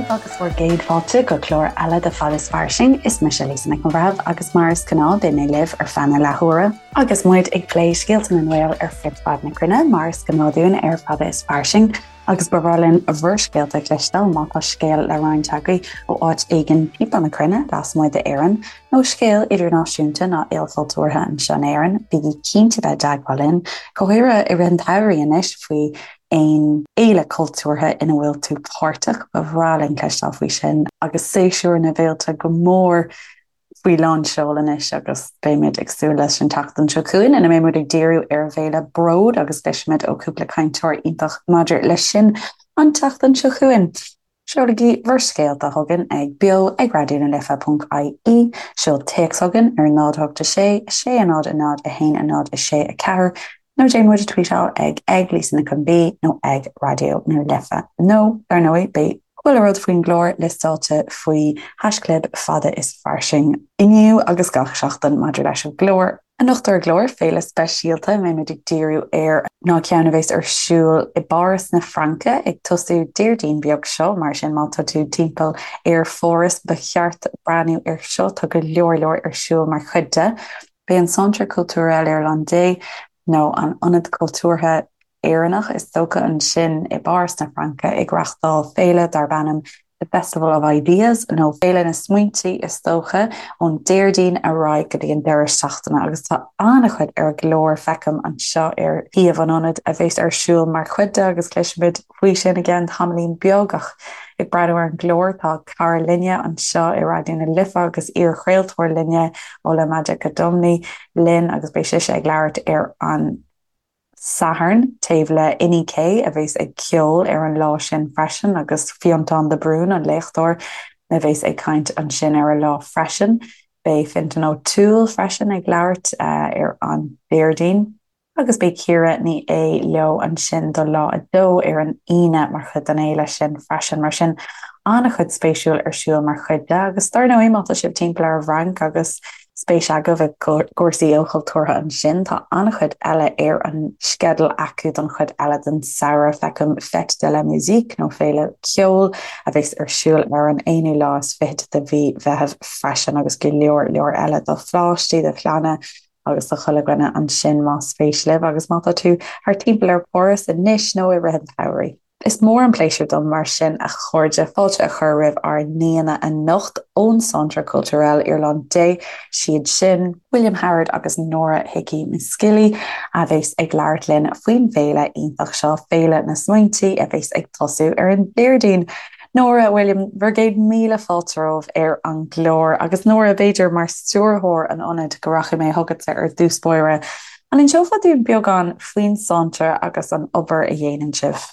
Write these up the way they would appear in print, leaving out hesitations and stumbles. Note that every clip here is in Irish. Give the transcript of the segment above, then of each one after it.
daoibh agus bhur gcéad fáilte go clár eile de Fada is Fairsing. Is mise Lisa Nic an Bhreithimh agus mar is gnáth beidh mé libh ar feadh na leathuaire agus muid ag plé scéalta na nGael ar fud fad na cruinne mar is gnáth dúinn ar Fada is Fairsing. Agus ba bhreá linn bhur scéalta a chloisteáil má tá scéal le roinnt agaibh ó áit éigin timpeall na cruinne, lasmuigh d'Éirinn, nó scéal idirnáisiúnta nó ilchultúrtha anseo in Éirinn, bígí cinnte bheith i dteagmháil linn, go háirithe i rith an tsamhraidh anois, faoi aon fhéile cultúrtha ina bhfuil tú páirteach, ba bhreá linn cloisteáil faoi sin. Agus séasúr na bhféilte go mór faoi lán seoil anois agus beimid ag súil leis an tseachtain seo chugainn ina mbeidh muid ag díriú ar an bhféile Bród agus cloisfimid ó chúpla cainteoir iontach maidir leis sin an tseachtain seo chugainn. Seolaigí bhur scéalta chugainn ag beo ag raidió na life ponc ie, seol téacs chugainn ar 0 8 6 6 0 0 1 0 6 4 nó déan muid a tweetáil ag ag Lisa Nic an B nó ag Raidió na Life. Nó, dar ndóigh, beidh chuile rud faoin gclár liostáilte faoi haischlib Fada is Fairsing inniu agus gach seachtain maidir leis an gclár. Anocht ar an gclár, féile speisialta a mbeidh muid ag díriú air ná ceann a bheas ar siúl i bPáras na Fraince ag tosú Déardaoin beag seo, mar sin má tá tú timpeall ar Pháras ba cheart breathnú air seo, tá go leor leor ar siúl mar chuid de. Beidh an Centre Culturel Irlandais, nó an Ionad Cultúrtha Éireannach is dócha, ansin i bPáras na Fraince ag reáchtáil féile darb ainm The Festival of Ideas, nó Féile na Smaointe is dócha, ón Déardaoin ar aghaidh go dtí an deireadh seachtaine agus tá an-chuid ar an gclár, feicim anseo ar shuíomh an ionaid, a bheas ar siúl mar chuid de agus cloisfimid faoi sin i gceann tamaillín beag ach ag breathnú ar an gclár tá cara linne anseo i Raidió na Life agus iar-chraoltóir linne Ola Majekodunmi linn agus beidh sise ag labhairt ar an Satharn taobh le Inni K a bheas ag ceol ar an lá sin freisin agus Fionntán de Brún an léachtóir a bheas ag caint ansin ar an lá freisin. Beidh Fintan O'Toole freisin ag labhairt ar an Déardaoin. Agus beidh Ciara Ní É leo ansin do lá 2 ar an Aoine mar chuid den fhéile sin freisin. Mar sin, an-chuid spéisiúil ar siúl mar chuid de. Agus dar ndóigh, má tá sibh timpeall ar an bhFrainc agus spéis agaibh i gcúrsaí ilchultúrtha ansin, tá an-chuid eile ar an sceideal acu don chuid eile den samhradh. Feicim Fête de la Musique nó Féile Ceoil a bheas ar siúl ar an aonú lá is fichead de mhí Mheithimh freisin agus go leor leor eile do pháistí, do chlanna, agus do chuile dhuine ansin más spéis libh agus má tá tú thart timpeall ar Pháras anois nó i rith an tsamhraidh. Is mór an pléisiúr dom mar sin a chairde fáilte a chur roimh ár n-aíonna anocht ón Centre Culturel Irlandais, siad sin, William Howard agus Nora Hickey McSkilly a bheas ag labhairt linn faoin bhféile iontach seo, Féile na Smaointe, a bheas ag tosú ar an Déardaoin. Nóra, William, bhur gcéad míle fáilte romhaibh ar an gclár. Agus Nóra, b'fhéidir, mar stiúrthóir an ionaid, go rachaidh mé chugatsa ar dtús báire. An inseofá dúinn beagán faoin Centre agus an obair a dhéanann sibh?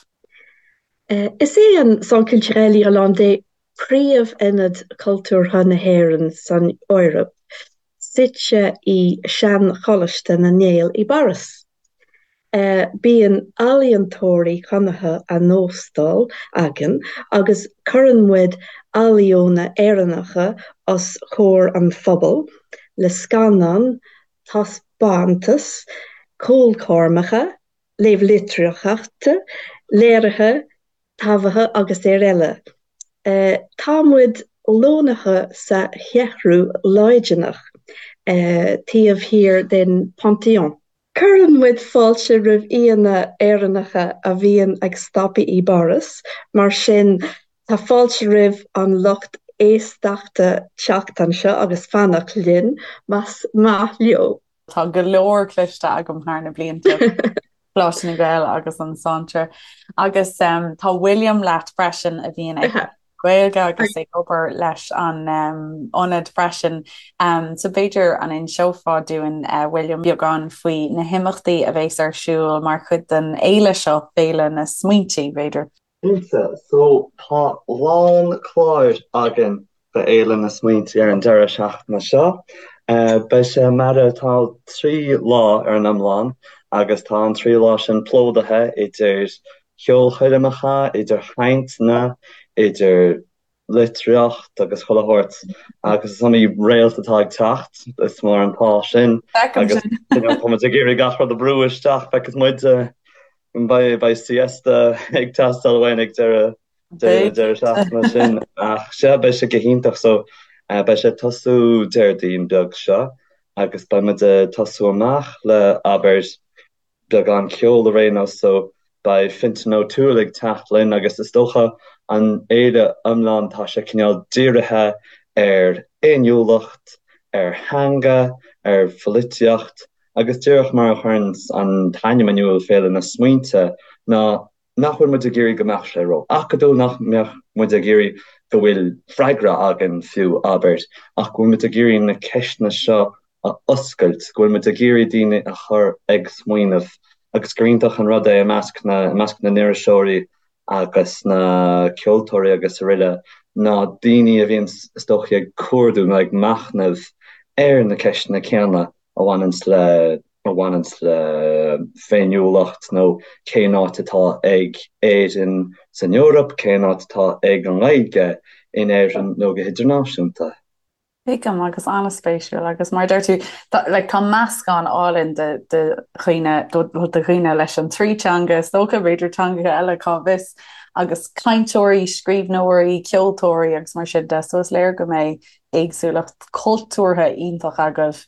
Is é an Centre Culturel Irlandais príomh-ionad cultúrtha na hÉireann san Eoraip, suite i Sean-Choláiste na nGael i bPáras. Bíonn ealaíontóirí cónaithe á n-óstáil againn agus cuireann muid ealaíona Éireannacha os comhair an phobail le scannáin, taispeántais, ceolchoirmeacha, léamh litríochta, léirithe taibhithe agus ar eile. Tá muid lonnaithe sa Cheathrú Laidineach, taobh thiar den Panthéon. Cuireann muid fáilte roimh aíonna Éireannacha a bhíonn ag stopadh i bPáras, mar sin tá fáilte roimh an lucht éisteachta teacht anseo agus fanacht linn más maith leo. Tá go leor cloiste agam thar na blianta, Coláiste na nGael agus an Centre. Agus tá William leat freisin a bhíonn ag Gaeilge agus ag obair leis an ionad freisin. So b'fhéidir an inseofá dúinn, William, beagán faoi na himeachtaí a bheas ar siúl mar chuid den fhéile seo, Féile na Smaointe, b'fhéidir? Cinnte. So tá lán cláir againn do Fhéile na Smaointe ar an deireadh seachtaine seo. Beidh sé mar atá 3 lá ar an iomlán agus tá an 3 lá sin plódaithe idir cheolchoirmeacha, idir chainteanna, idir litríocht agus chuile shórt agus is iomaí réalt atá ag teacht, is mór an t-ádh sin agus you know tá muid ag iarraidh gach rud a bhrú isteach, feicfidh muid, beidh siesta ag teastáil uainn ag deireadh. Deireadh deireadh seachtaine sin ach sea beidh sé go hiontach so beidh sé ag tosú Déardaoin beag seo agus beidh muid ag tosú amach le abair beagán ceoil ar aon nós so beidh Fintan O'Toole ag teacht linn agus is dócha an fhéile iomlán tá sé cineál dírithe ar fhéiniúlacht, ar theanga, ar pholaitíocht agus díreach mar a chuireann an t-ainm in iúl Féile na Smaointe ná nach bhfuil muid ag iarraidh go mbeadh sé ró-acadúil, nach mbeadh muid ag iarraidh go bhfuil freagra againn fiú, abair, ach go bhfuil muid ag iarraidh na ceisteanna seo a oscailt, go bhfuil muid ag iarraidh daoine a chur ag smaoineamh agus gur iontach an rud é i measc na, i measc na n-iriseoirí agus na ceoltóirí agus araile ná daoine a bhíonn is dóichí ag cuardú nó ag machnamh ar na ceisteanna céanna a bhaineanns le a bhaineanns le féiniúlacht nó cén áit atá ag Éirinn san Eoraip, cén áit atá ag an nGaeilge in Éirinn nó go hidirnáisiúnta. Tuigim, agus an-spéisiúil agus mar a deir tú, tá, like, tá meascán álainn de, de dhaoine, de, de dhaoine leis an trí teanga, is dócha, b'fhéidir teangacha eile, cá bhfios, agus cainteoirí, scríbhneoirí, ceoltóirí agus mar sin de, so is léir go mbeidh éagsúlacht cultúrtha iontach agaibh.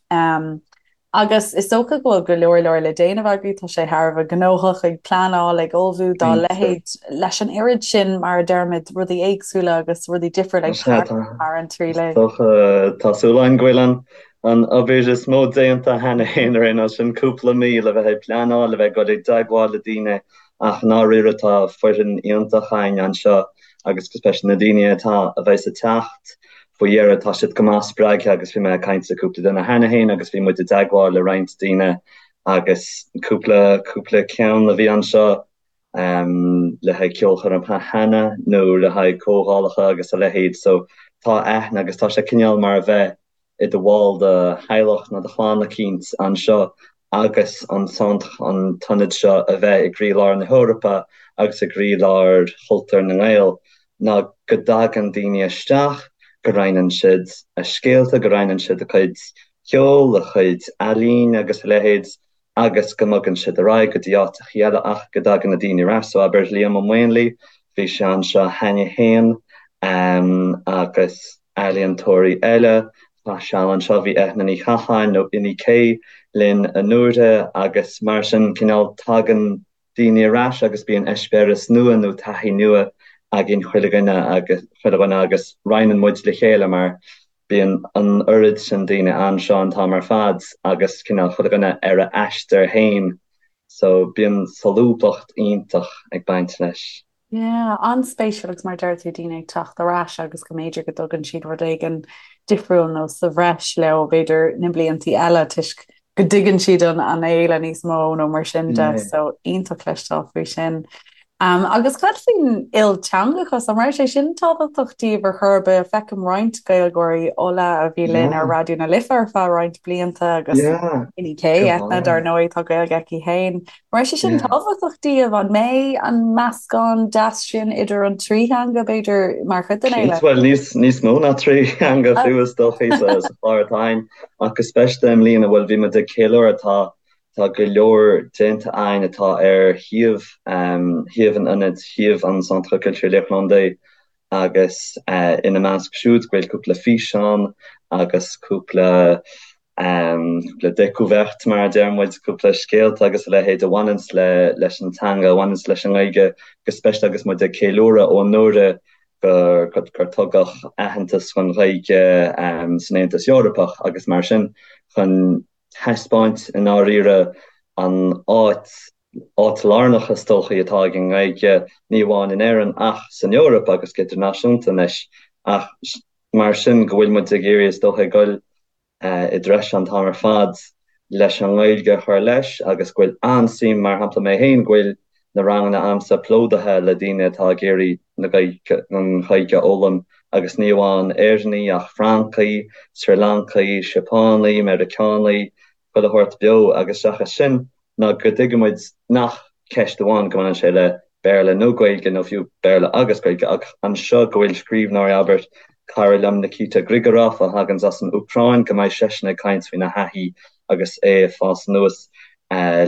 Agus is dócha go bhfuil go leor leor le déanamh agaibh, tá sé thar a bheith gnóthach ag pleanáil, ag ullmhú dá leithéid, leis an oiread sin, mar a deirimid, rudaí éagsúla agus rudaí difriúla ag tarlú thar an trí lae. Tá súil againn go bhfuil an an obair is mó déanta cheana féin ar aon nós, sin cúpla mí le bheith ag pleanáil, le bheith ag dul i dteagmháil le daoine ach i ndáiríre tá foireann iontach againn anseo agus go speisialta na daoine atá a bheas ag teacht faoi dheireadh tá siad go maith spreagtha agus bhí mé ag caint le cúpla duine cheana féin agus bhí muid i dteagmháil le roinnt daoine agus cúpla cúpla ceann a bhí anseo um, le haghaidh ceolchoirmeacha cheana nó le haghaidh comhdhálacha agus a leithéid so tá aithne agus tá sé cineál mar a bheith i do bhall de theaghlach nó de chlann eicínt anseo agus an centre, an t-ionad seo a bheith i gcroílár na hEorpa agus i gcroílár chultúr na nGael, ná go dtagann daoine isteach, go roinneann siad a scéalta, go roinneann siad a cuid ceoil, a chuid ealaíne agus a leithéid agus go mbogann siad ar aghaidh go dtí áiteachaí eile ach go dtagann na daoine ar ais. So abair Liam Ó Maonlaí, bhí sé anseo cheana féin agus ealaíontóirí eile, chaith seal anseo, bhí Eithne Ní Chatháin nó Inni K linn anuraidh agus mar sin cineál tagann daoine ar ais agus bíonn eispéireas nua nó taithí nua againn chuile dhuine agus chuile dhuine agus roinneann muid le chéile mar bíonn an oiread sin daoine anseo an t-am ar fad agus cineál chuile dhuine ar a aistear féin so bíonn solúbthacht iontach ag baint leis. Yeah, an-spéisiúil agus mar a deir tú daoine ag teacht ar ais agus go mb'fhéidir go dtugann siad rud éigin difriúil nó sa bhreis leo b'fhéidir na bliantaí eile toisc go dtuigeann siad an an fhéile níos mó nó mar sin de so iontach cloisteáil faoi sin. Um, agus cad faoin ilteangachas an raibh sé sin tábhachtach daoibh ar chor ar bith feicim roinnt Gaeilgeoirí Ola a bhí linn ar Raidió na Life ar feadh roinnt blianta agus Inni K Eithne dar ndóigh tá Gaeilge aici féin. An raibh sé sin tábhachtach daoibh? An mbeidh an meascán deas sin idir an trí theanga, b'fhéidir, mar chuid den fhéile? Bhuel, níos, níos mó ná trí theanga fiú is dóichí sa, sa chlár atá againn, ach go speisialta i mbliana, bhuel, bhí muid ag ceiliúradh, tá, tá go leor déanta againn atá ar shuíomh, shuíomh an ionaid, shuíomh an Centre Culturel Irlandais agus ina measc siúd go bhfuil cúpla físeán agus cúpla cúpla découverte mar a deir muid, cúpla scéalta agus a leithéid a bhaineanns le leis an teanga, a bhaineanns leis an nGaeilge go speisialta agus muid ag ceiliúradh ó anuraidh gur gur tugadh aitheantas don Ghaeilge san Aontas Eorpach agus mar sin chun taispeáint i ndáiríre an áit áit lárnach is dóichí atá ag an nGaeilge ní amháin in Éirinn ach san Eoraip agus go hidirnáisiúnta anois ach mar sin go bhfuil muid ag iarraidh is dócha ag goil i dtreis an t-am ar fad leis an nGaeilge a chur leis agus go bhfuil an-suim, mar shampla mé féin, go bhfuil na ranganna a'msa plódaithe le daoine atá ag iarraidh na Gaeilge, an Ghaeilge a fhoghlaim agus ní amháin Éireannaigh ach Francaigh, Sri Lancaigh, Seapánaigh, Meiriceánaigh, chuile shórt beo agus seachas sin ná go dtuigeann muid nach ceist amháin go mbaineann sé le Béarla nó Gaeilge nó fiú Béarla agus Gaeilge ach anseo go bhfuil scríbhneoirí, abair, cara liom Nikita Grigorov a thaganns as an Úcráin, go mbeidh seisean ag caint faoina thaithí agus é ag fás anuas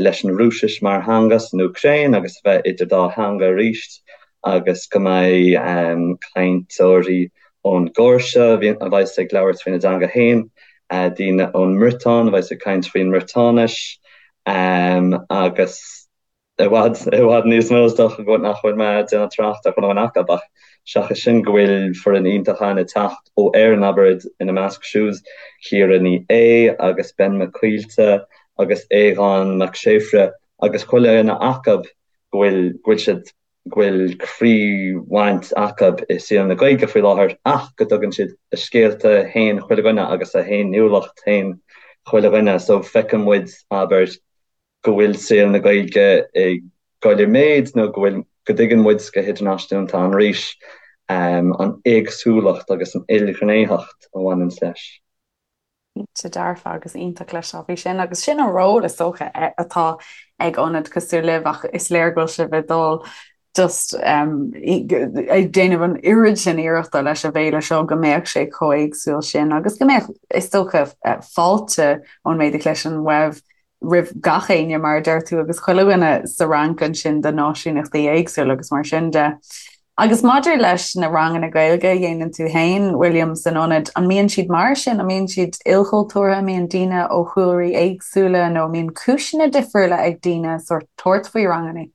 leis an Rúisis mar theanga san Úcráin agus a bheith idir dá theanga arís. agus go mbeidh cainteoirí ón gCóirse a bheas ag labhairt faoina dteanga féin, daoine ón mBriotáin a bheas ag caint faoin mBriotáinis agus i bhfad, i bhfad níos mó is dócha go nach bhfuil mé ag déanamh trácht ar chuile dhuine acu ach seachas sin go bhfuil foireann iontach ann ag teacht ó Éirinn abair ina measc siúd Ciara Ní É agus Ben Mac Coillte agus Aodhán Mac Séafraidh agus chuile dhuine acu go bhfuil, go bhfuil siad, go bhfuil croíbhaint acu i saol na Gaeilge faoi láthair ach go dtugann siad a scéalta féin chuile dhuine agus a fhéiniúlacht féin chuile dhuine so feiceann muid abair go bhfuil saol na Gaeilge ag goil i méid nó go bhfuil, go dtuigeann muid go hidirnáisiúnta arís an éagsúlacht agus an ilghnéitheacht a bhaineann leis. Cinnte dearfa agus iontach cloisteáil faoi sin agus sin an ról is dócha atá ag ionad cosúil libh ach is léir go bhfuil sibh ag dul just ag déanamh an oiread sin iarrachta leis an bhféile seo go mbeadh sé chomh éagsúil sin agus go mbeadh is dócha fáilte ón méid a chloisim uaibh roimh gach éinne, mar a deir tú, agus chuile dhuine sa Fhrainc ansin de náisiúnachtaí éagsúla agus mar sin de. Agus maidir leis na ranganna Gaeilge a dhéanann tú féin, William, san ionad, an mbíonn siad mar sin? An mbíonn siad ilchultúrtha? An mbíonn daoine ó chúlraí éagsúla nó an mbíonn cúiseanna difriúla ag daoine sórt tabhairt faoi ranganna?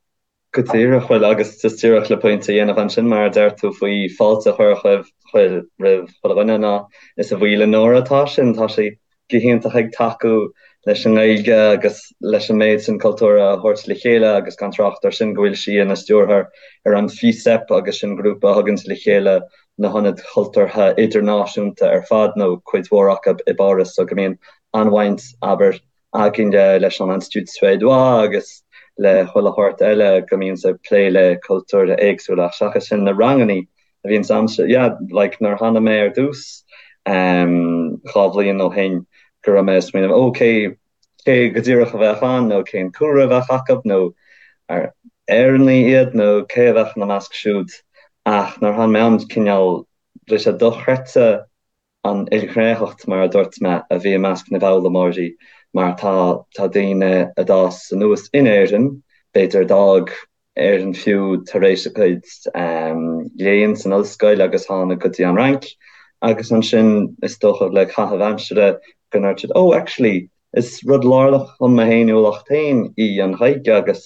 Go díreach, bhuel, agus just díreach le pointe a dhéanamh ansin, mar a deir tú faoi fáilte a chur chuir roimh chuile dhuine, ná is a bhuí le Nóra atá sin, tá sí go hiontach ag tacú leis an nGaeilge agus leis an méid sin cultúr a thabhairt le chéile agus gan trácht ar sin go bhfuil sí ina stiúrthóir ar an FICEP agus sin grúpa a thuganns le chéile na hionaid chultúrtha idirnáisiúnta ar fad nó cuid mhór acu i bPáras so go mbíonn an-bhaint, abair, againne leis an Institut Suédois agus le chuile shórt eile go mbíonns ag plé le cultúir éagsúla ach seachas sin na rangannaí a bhíonns a'msa yeah like nuair a tháinig mé ar dtús ehm 2 bhliain ó shin go raibh mé ag smaoineamh oh cé cé go díreach a bheadh ann nó cén cúlra a bheadh acu nó ar Éireannaigh iad nó cé a bheadh ina measc siúd ach nuair a tháinig mé ann cineál bhí sé dochreidte an ilghnéitheacht, mar a dúirt mé, a bhí i measc na bhfoghlaimeoirí, mar tá tá daoine a d'fhás anuas in Éirinn, b'fhéidir a d'fhág Éirinn fiú tar éis a gcuid léinn san ollscoil agus tháinig go dtí an Fhrainc, agus ansin is dócha le caitheamh aimsire go ndúirt siad oh actually is rud lárnach chun mo fhéiniúlacht féin í an Ghaeilge agus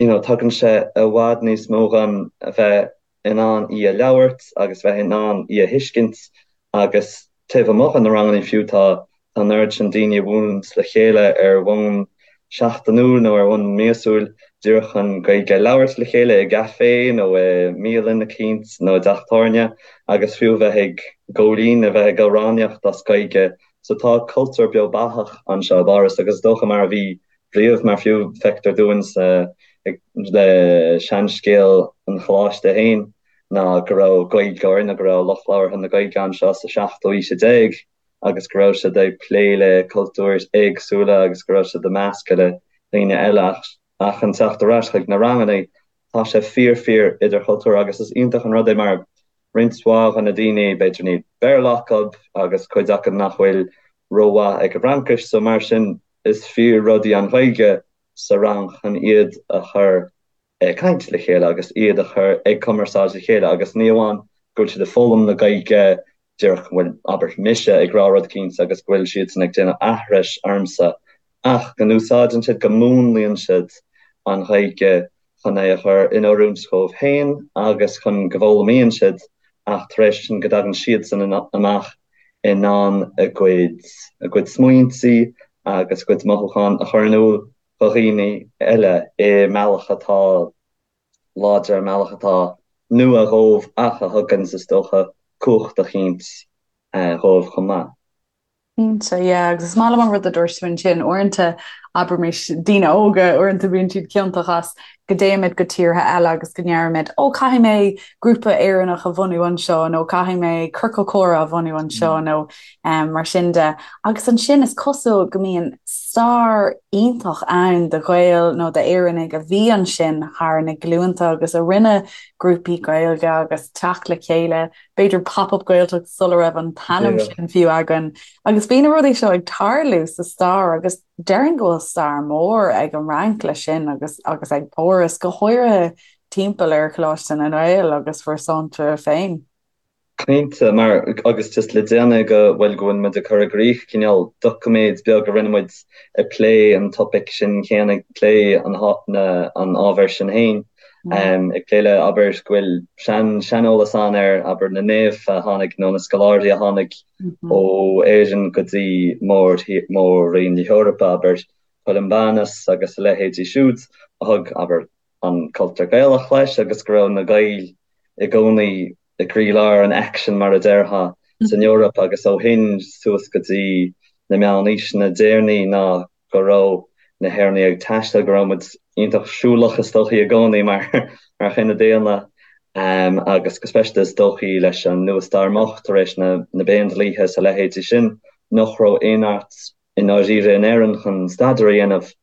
you know tugann sé i bhfad níos mó dhom a bheith in ann í a labhairt agus bheith in ann í a thuiscint agus taobh amuigh de na ranganna fiú tá tá an oiread sin daoine a bhuaileanns le chéile ar bhonn seachtainiúil nó ar bhonn míosúil díreach chun Gaeilge a labhairt le chéile i gcaifé nó i mbialann eicínt nó i dteach tábhairne agus fiú bheith ag góilín a bheith ag amhránaíocht as Gaeilge so tá cultúr beo beathach anseo i bPáras agus is dócha mar a bhí riamh, mar fiú feictear dúinn sa le seanscéal an Choláiste féin ná go raibh Gaeilgeoir nó go raibh lucht labhartha na Gaeilge anseo sa seachtú aois déag agus go raibh siad ag plé le cultúir éagsúla agus go raibh siad ag meascadh le daoine eile ach ach chun teacht ar ais chuig na ranganna tá sé fíor fíor idirchultúrtha agus is iontach an rud é mar roinnt mhaith de na daoine b'fhéidir níl Béarla acu agus cuid acu nach bhfuil rómhaith ag an bhFraincis so mar sin is fíor rud í an Ghaeilge sa rang chun iad a chur ag caint le chéile agus iad a chur ag cumarsáid le chéile agus ní amháin go bhfuil siad ag foghlaim na Gaeilge díreach go bhfuil, abair, mise ag rá rud eicínt agus go bhfuil siadsan ag déanamh aithris ormsa ach go n-úsáideann siad, go múnlaíonn siad an Ghaeilge chun é a chur in oiriúint dhóibh féin agus chun go bhfoghlaimíonn siad ach tar éis sin go dtagann siadsan amach in ann a gcuid a gcuid smaointe agus a gcuid mothúchán a chur in iúl do dhaoine eile i mbealach atá láidir, i mbealach atá nua dhóibh ach a thugann, is dócha, cumhacht eicínt dhóibh chomh maith. Cinnte, yeah, agus is maith liom an rud a dúirt tú ansin, uaireanta, abraimis, daoine óga, uaireanta bíonn siad ciontach as go dtéimid go tíortha eile agus go ndeirimid, ó, caithfidh mé grúpa Éireannach a bhunú anseo nó caithfidh mé ciorcal comhrá a bhunú anseo nó um, mar sin de. Agus ansin is cosúil go mbíonn stair iontach ann de Ghaeil nó d'Éireannaigh a bhí ansin thar na glúnta agus a rinne grúpaí Gaeilge agus teacht le chéile b'fhéidir Pop-Up Gaeltacht sula raibh an t-ainm sin fiú againn. Agus bhí na rudaí seo ag tarlú sa stair agus déarfainn go bhfuil stair mhór ag an Fhrainc leis sin agus agus ag Páras, go háirithe. timpeall ar Choláiste na nGael agus bhur centre féin. Cinnte, mar, agus just le déanaí go bhfuil, go bhfuil muid ag cur i gcrích cineál doiciméad beag a rinne muid ag plé an topaic sin céanna, ag plé an, na, an ábhair sin féin, ag plé le, abair, go bhfuil sean, seaneolas ann ar, abair, na naoimh a tháinig nó na scoláirí a tháinig ó Éirinn go dtí mór, mór-roinn na hEorpa, abair, Columbanus agus a leithéidí siúd a thug, abair, an cultúr Gaelach leis agus go raibh na Gaeil i gcónaí i gcroílár an aicsin, mar a déarfá, san Eoraip agus ó shin suas go dtí na meánaoiseanna deireanaí ná go raibh na hÉireannaigh ag taisteal, go raibh muid iontach siúlach is dóichí i gcónaí mar mar chine daonna agus go speisialta is dóichí leis an nua-stair moch tar éis na na bPéindlíthe is a leithéidí sin nach raibh aon áit i ndáiríre in Éirinn chun staidéar a dhéanamh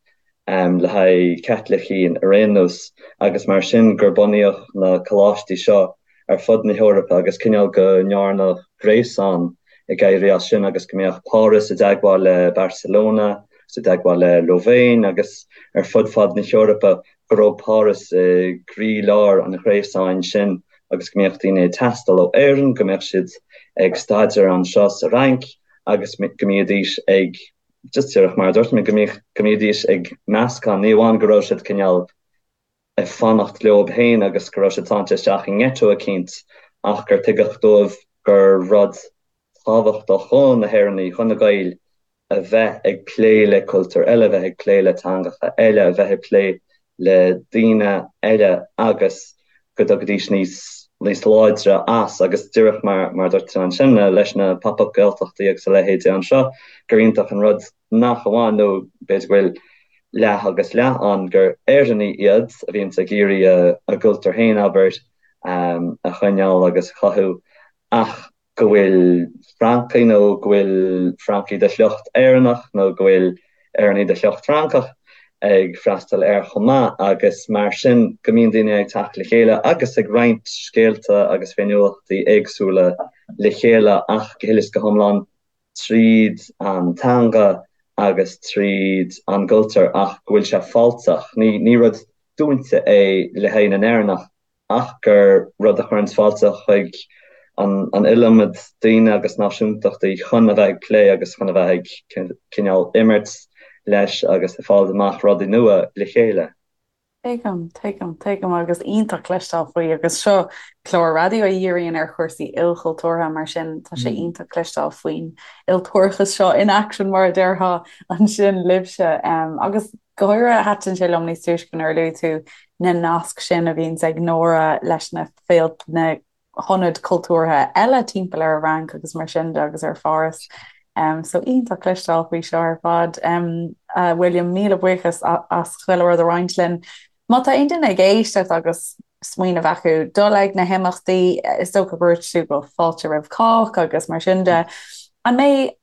le haghaidh Caitlicigh ar aon nós agus mar sin gur bunaíodh na coláistí seo ar fud na hEorpa agus cineál go ndearnadh gréasán ag éirí as sin agus go mbeadh Páras i dteagmháil le Barcelona agus i dteagmháil le Louvain agus ar fud fad na hEorpa go raibh Páras i gcroílár an ghréasáin sin agus go mbeadh daoine ag taisteal ó Éirinn, go mbeadh siad ag staidéar anseo sa Fhrainc. agus go mbídís ag, just díreach mar a dúirt mé, go mbíodh, go mbídís ag meascán, ní amháin go raibh siad cineál ag fanacht leo féin agus go raibh siad sáite isteach i ngeiteo eicínt ach gur tuigeadh dóibh gur rud tábhachtach do na hÉireannaigh, do na Gaeil a bheith ag plé le cultúir eile, a bheith ag plé le teangacha eile, a bheith ag plé le daoine eile agus go dtiocfaidís níos níos láidre as agus díreach mar mar a dúirt tú ansin leis na pop-up Gaeltachtaí agus a leithéidí anseo gur iontach an rud nach amháin nó b'fhéidir go bhfuil leath agus leath ann gur Éireannaigh iad a bhíonns ag iarraidh a gcultúr féin abair a choinneáil agus a chothú ach go bhfuil Francaigh nó go bhfuil Francaigh de shliocht Éireannach nó go bhfuil Éireannaigh de shliocht Francach ag freastal air chomh maith agus mar sin go mbíonn daoine ag teacht le chéile agus ag roinnt scéalta agus féiniúlachtaí éagsúla le chéile ach go huile is go hiomlán tríd an teanga agus tríd an gcultúr ach go bhfuil sé fáilteach. Ní rud dúnta é le haghaidh na nÉireannach ach gur rud a chuireanns fáilte chuig an iliomad daoine agus náisiúntachtaí chun a bheith ag plé agus chun a bheith ag cineál imirt leis agus ag fáil amach rudaí nua le chéile. Tuigim, tuigim, tuigim agus iontach cloisteáil faoi agus seo clár raidió a dhíríonn ar chúrsaí ilchultúrtha mar sin tá sé iontach cloisteáil faoin iltúrachas seo in action mar a déarfá ansin libhse agus Go háirithe, thaitin sé liom níos túisce nuair a luaigh tú na naisc sin a bhíonns ag Nóra leis na na hionaid cultúrtha eile timpeall ar an Fhrainc agus mar sin de agus ar Pháras. So iontach cloisteáil faoi seo ar fad. A William, míle buíochas as chuile rud a roinnt linn. Má tá aon duine ag éisteacht agus smaoineamh acu dul ag na himeachtaí, is dócha gur dhúirt tú go fáilte roimh chách agus mar sin de, an mbeidh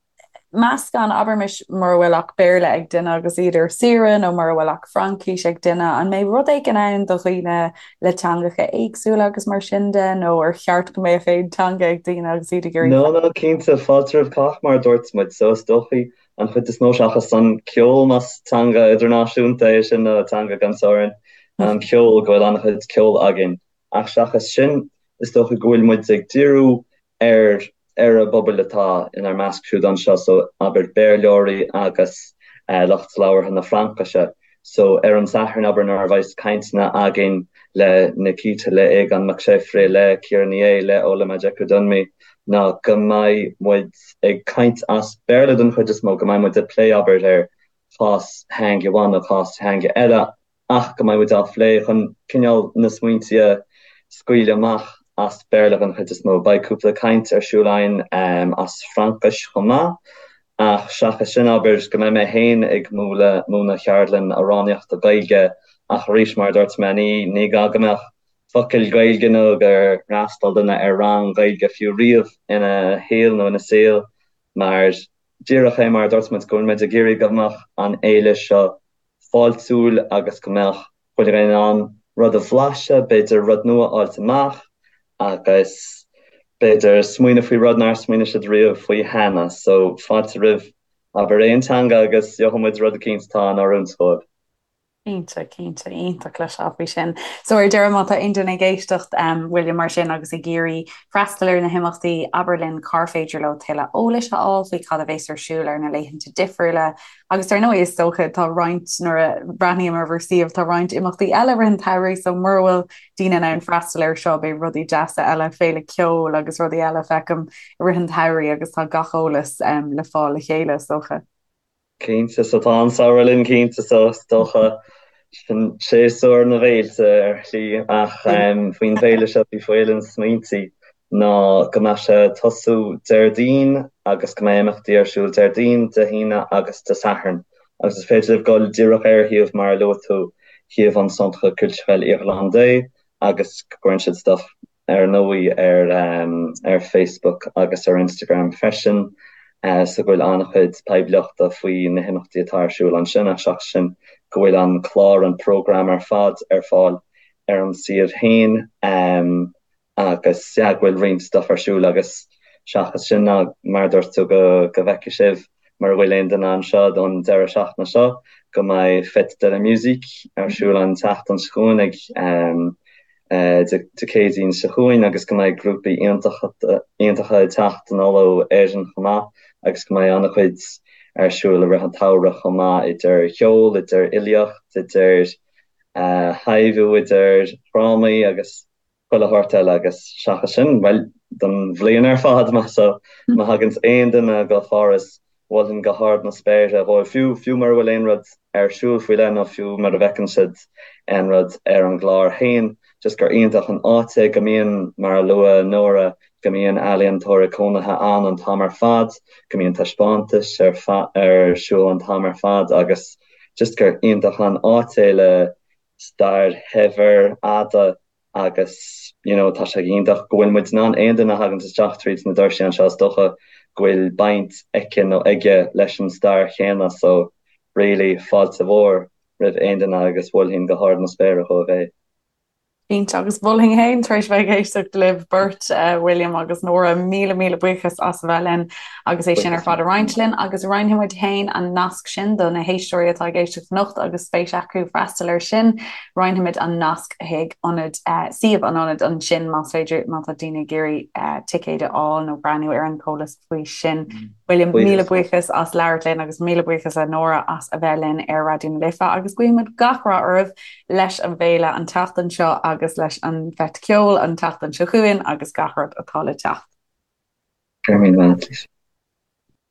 meascán, abraimis mura bhfuil ach Béarla ag duine agus iad ar saoire nó mura bhfuil ach Fraincis ag duine, an mbeidh rud éigin ann do dhaoine le teangacha éagsúla agus mar sin de nó ar cheart go mbeadh aon teanga ag daoine agus iad ag iarraidh No, no, cinnte, fáilte roimh chách mar a dúirt muid, so is dóichí an chuid is mó seachas an ceol más teanga idirnáisiúnta é sin nó teanga gan teorainn, an ceol, go bhfuil an-chuid ceoil againn. Ach seachas sin, is dócha go bhfuil muid ag díriú ar ar an bpobal atá inár measc siúd anseo, so abair Béarlóirí agus lucht labhartha na Fraincise. So ar an Satharn, abair, nuair a bheas cainteanna againn le Nikita, le Aogán Mac Séafraidh, le Ciara Ní É, le Ola Majekodunmi, ná go mbeidh muid ag caint as Béarla den chuid is mó, go mbeidh muid ag plé, abair, ar chás theanga amháin nó cás theanga eile, ach go mbeidh muid á phlé chun cineál na smaointe a scaoileadh amach as Béarla den chuid is mó. Beidh cúpla caint ar siúl againn as Fraincis chomh maith, ach seachas sin, abair, go mbeidh mé féin ag múineadh múineadh cheardlann amhránaíochta Gaeilge ach arís, mar a dúirt mé, ní ní gá go mbeadh focal Gaeilge nó gur fhreastail duine ar rang Gaeilge fiú riamh ina shaol nó ina saol mar díreach é mar a dúirt muid go bhfuil muid ag iarraidh go mbeadh an fhéile seo fáiltiúil agus go mbeadh chuile dhuine in ann rud a bhlaiseadh, b'fhéidir rud nua a fháilt amach agus b'fhéidir smaoineamh faoi rud nár smaoinigh siad riamh faoi cheana. So fáilte roimh abair aon teanga agus gheobhaidh muid rud eicínt atá in oiriúint dóibh. Cinnte, cinnte, iontach cloisteáil faoi sin. So ar deireadh, má tá aon duine ag éisteacht, William, mar sin agus ag iarraidh freastal ar na himeachtaí, abair linn cár féidir leo tuilleadh eolais a fháil faoi cad a bhéas ar siúl ar na laethanta difriúla. Agus dar ndóigh, is dócha, tá roinnt, nuair a bhreathnaím ar bhur suíomh, tá roinnt imeachtaí eile i rith an tsamhraidh, so mura bhfuil daoine in ann freastal air seo, beidh rudaí deasa eile, féile ceoil agus rudaí eile, feicim, i rith an tsamhraidh agus tá gach eolas le fáil le chéile, is dócha. Cinnte, so tá an samhradh linn cinnte so is dócha sin séasúr na bhféilte ar shlí ach faoin bhféile seo bhí Féile na Smaointe ná go mbeadh sé ag tosú Déardaoin agus go mbeidh imeachtaí ar siúl Déardaoin, Dé hAoine agus Dé Sathairn agus is féidir libh dul díreach ar shuíomh mar a luaigh tú, shuíomh an Centre Culturel Irlandais agus go gcuireann siad stuff ar ndóigh ar ar Facebook agus ar Instagram freisin so go bhfuil an-chuid poiblíochta faoi na himeachtaí atá ar siúl ansin ach seachas sin go bhfuil an clár, an program ar fad ar fáil ar an suíomh féin agus yeah go bhfuil roinnt stuff ar siúl agus seachas sin ná mar a dúirt tú go go bhfeicfidh sibh mura bhfuil aon duine anseo don deireadh seachtaine seo go mbeidh Fête de la Musique ar siúl an tseachtain seo chugainn ag Dé Céadaoin seo chugainn agus go mbeidh grúpaí iontacha ag teacht anall ó Éirinn chomh maith agus go mbeidh an-chuid ar siúl i rith an tsamhraidh chomh maith idir cheol, idir fhilíocht, idir thaibhiú, idir dhrámaí agus chuile shórt eile agus seachas sin, bhuel, don bhliain ar fad má má thaganns aon duine go Pháras Mholfainn go hard na spéire dhóibh, fiú, fiú mura bhfuil aon rud ar siúl faoi leith nó fiú mura bhfeiceann siad aon rud ar an gclár féin, just gur iontach an áit é, go mbíonn, mar a luaigh Nóra, go mbíonn ealaíontóirí cónaithe ann an t-am ar fad, go mbíonn taispeántais ar, ar siúl an t-am ar fad agus just gur iontach an áit é le stair shaibhir fhada agus you know tá sé iontach go bhfuil muid in ann aon duine a thaganns isteach tríd na doirsí anseo is dócha go bhfuil baint aici nó aige leis an stair chéanna so really fáilte mhór roimh aon duine agus mholfainn go hard na spéire dhóibh é. Cinnte, agus mholfainn féin tar éis bheith ag éisteacht libh beirt, William agus Nóra, míle míle buíochas as a bheith linn agus é sin ar fad a roinnt linn agus roinnfidh muid féin an nasc sin do na héisteoirí atá ag éisteacht anocht agus spéis acu freastal air sin. Roinnfimid an nasc chuig ionad, suíomh an ionaid ansin más féidir, má tá daoine ag iarraidh ticéid a fháil nó breathnú ar an t-eolas faoi sin. William, míle buíochas as labhairt linn agus míle buíochas a Nóra as a bheith linn ar Raidió na Life agus guímid gach rath oraibh leis an bhféile an tseachtain seo agus leis an bhFeis Ceoil an tseachtain seo chugainn agus gach rud atá le teacht. Go raibh míle maith agat.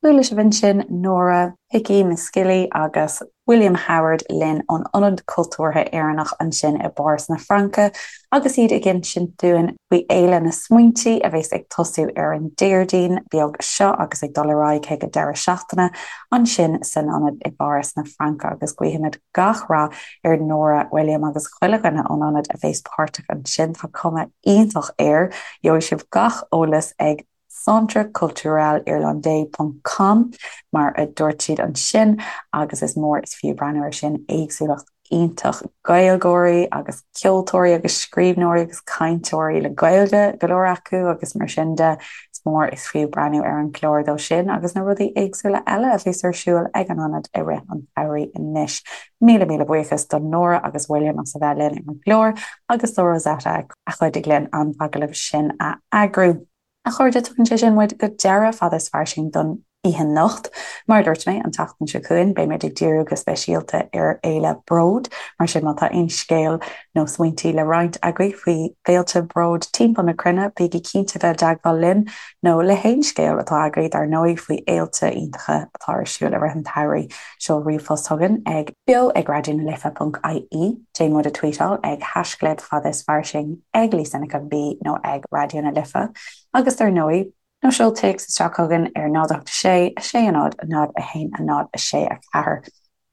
Chuala sibh ansin Nóra Hickey Misskilley agus William Howard linn ón Ionad Cultúrtha Éireannach ansin i bPáras na Fraince agus iad ag insint dúinn faoi Fhéile na Smaointe a bheas ag tosú ar an Déardaoin beag seo agus ag dul ar aghaidh chuig an deireadh seachtaine ansin san ionad i bPáras na Fraince agus guífimid gach rath ar Nóra, William agus chuile dhuine ón ionad a bheas páirteach ansin. Tá cuma iontach air. Gheobhaidh sibh gach eolas ag. centreculturelirlandais ponc com, mar a dúirt siad ansin, agus is mór is fiú breathnú air sin, éagsúlacht iontach Gaeilgeoirí agus ceoltóirí agus scríbhneoirí agus cainteoirí le Gaeilge, go leor acu, agus mar sin de, is mór is fiú breathnú ar an gclár dó sin agus na rudaí éagsúla eile a bheas ar siúl ag an ionad i rith an tsamhraidh anois. Míle míle buíochas do Nóra agus William as a bheith linn ar an gclár agus do Rosetta a chuidigh linn an t-agallamh sin a eagrú. A chairde, tugann sé sin muid go deireadh Fada is Fairsing don oíche anocht. Mar a dúirt mé, an tseachtain seo chugainn beimid ag díriú go speisialta ar Fhéile Bród, mar sin má tá aon scéal nó smaointí le roinnt agaibh faoi fhéilte bróid timpeall na cruinne, bígí cinnte bheith i dteagmháil linn, nó le haon scéal atá agaibh dar ndóigh faoi fhéilte iontacha atá ar siúl i rith an tsamhraidh. Seol ríomhphost chugainn ag beo ag raidió na life ponc ie, déan muid a tweetáil ag haischlib fada is fairsing, ag Lisa Nic an B nó ag Raidió na Life agus dar ndóigh, nó seol téacs isteach chugainn ar 0 8 6 6 0 0 1 0 6 4.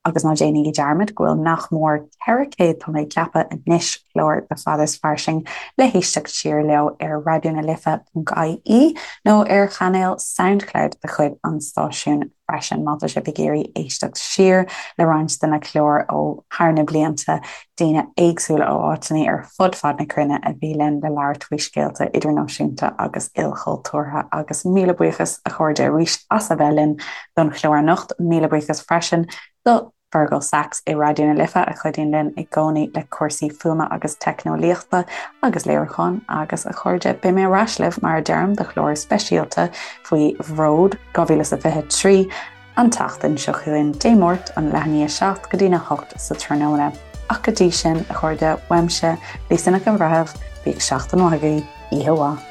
Agus ná déanaigí dearmad go bhfuil nach mór 400, tá mé ag ceapadh anois, clár de Fada is Fairsing le héisteacht siar leo ar raidionalife ponc ie nó ar chainéal Soundcloud de chuid an stáisiúin freisin má tá sibh ag iarraidh éisteacht siar le roinnt de na cláir ó thar na blianta, daoine éagsúla ó áiteanna ar fud fad na cruinne a bhí linn le labhairt faoi scéalta idirnáisiúnta agus ilchultúrtha. Agus míle buíochas a chairde arís as a bheith linn don chlár anocht. Míle buíochas freisin do. Fergal Sachs i Raidió na Life a chuidíonn linn i gcónaí le cúrsaí fuaime agus teicneolaíochta agus léiriúcháin agus a chairde beidh mé ar ais libh mar a deirim do chlár speisialta faoi Bhród 2023 an tseachtain seo chugainn Dé Máirt ón leath i ndiaidh 7 go dtí na 8 sa tráthnóna. Ach go dtí sin, a chairde, uaimse, Lisa Nic an Bhreithimh, bíodh seachtain mhaith agaibh, oíche mhaith.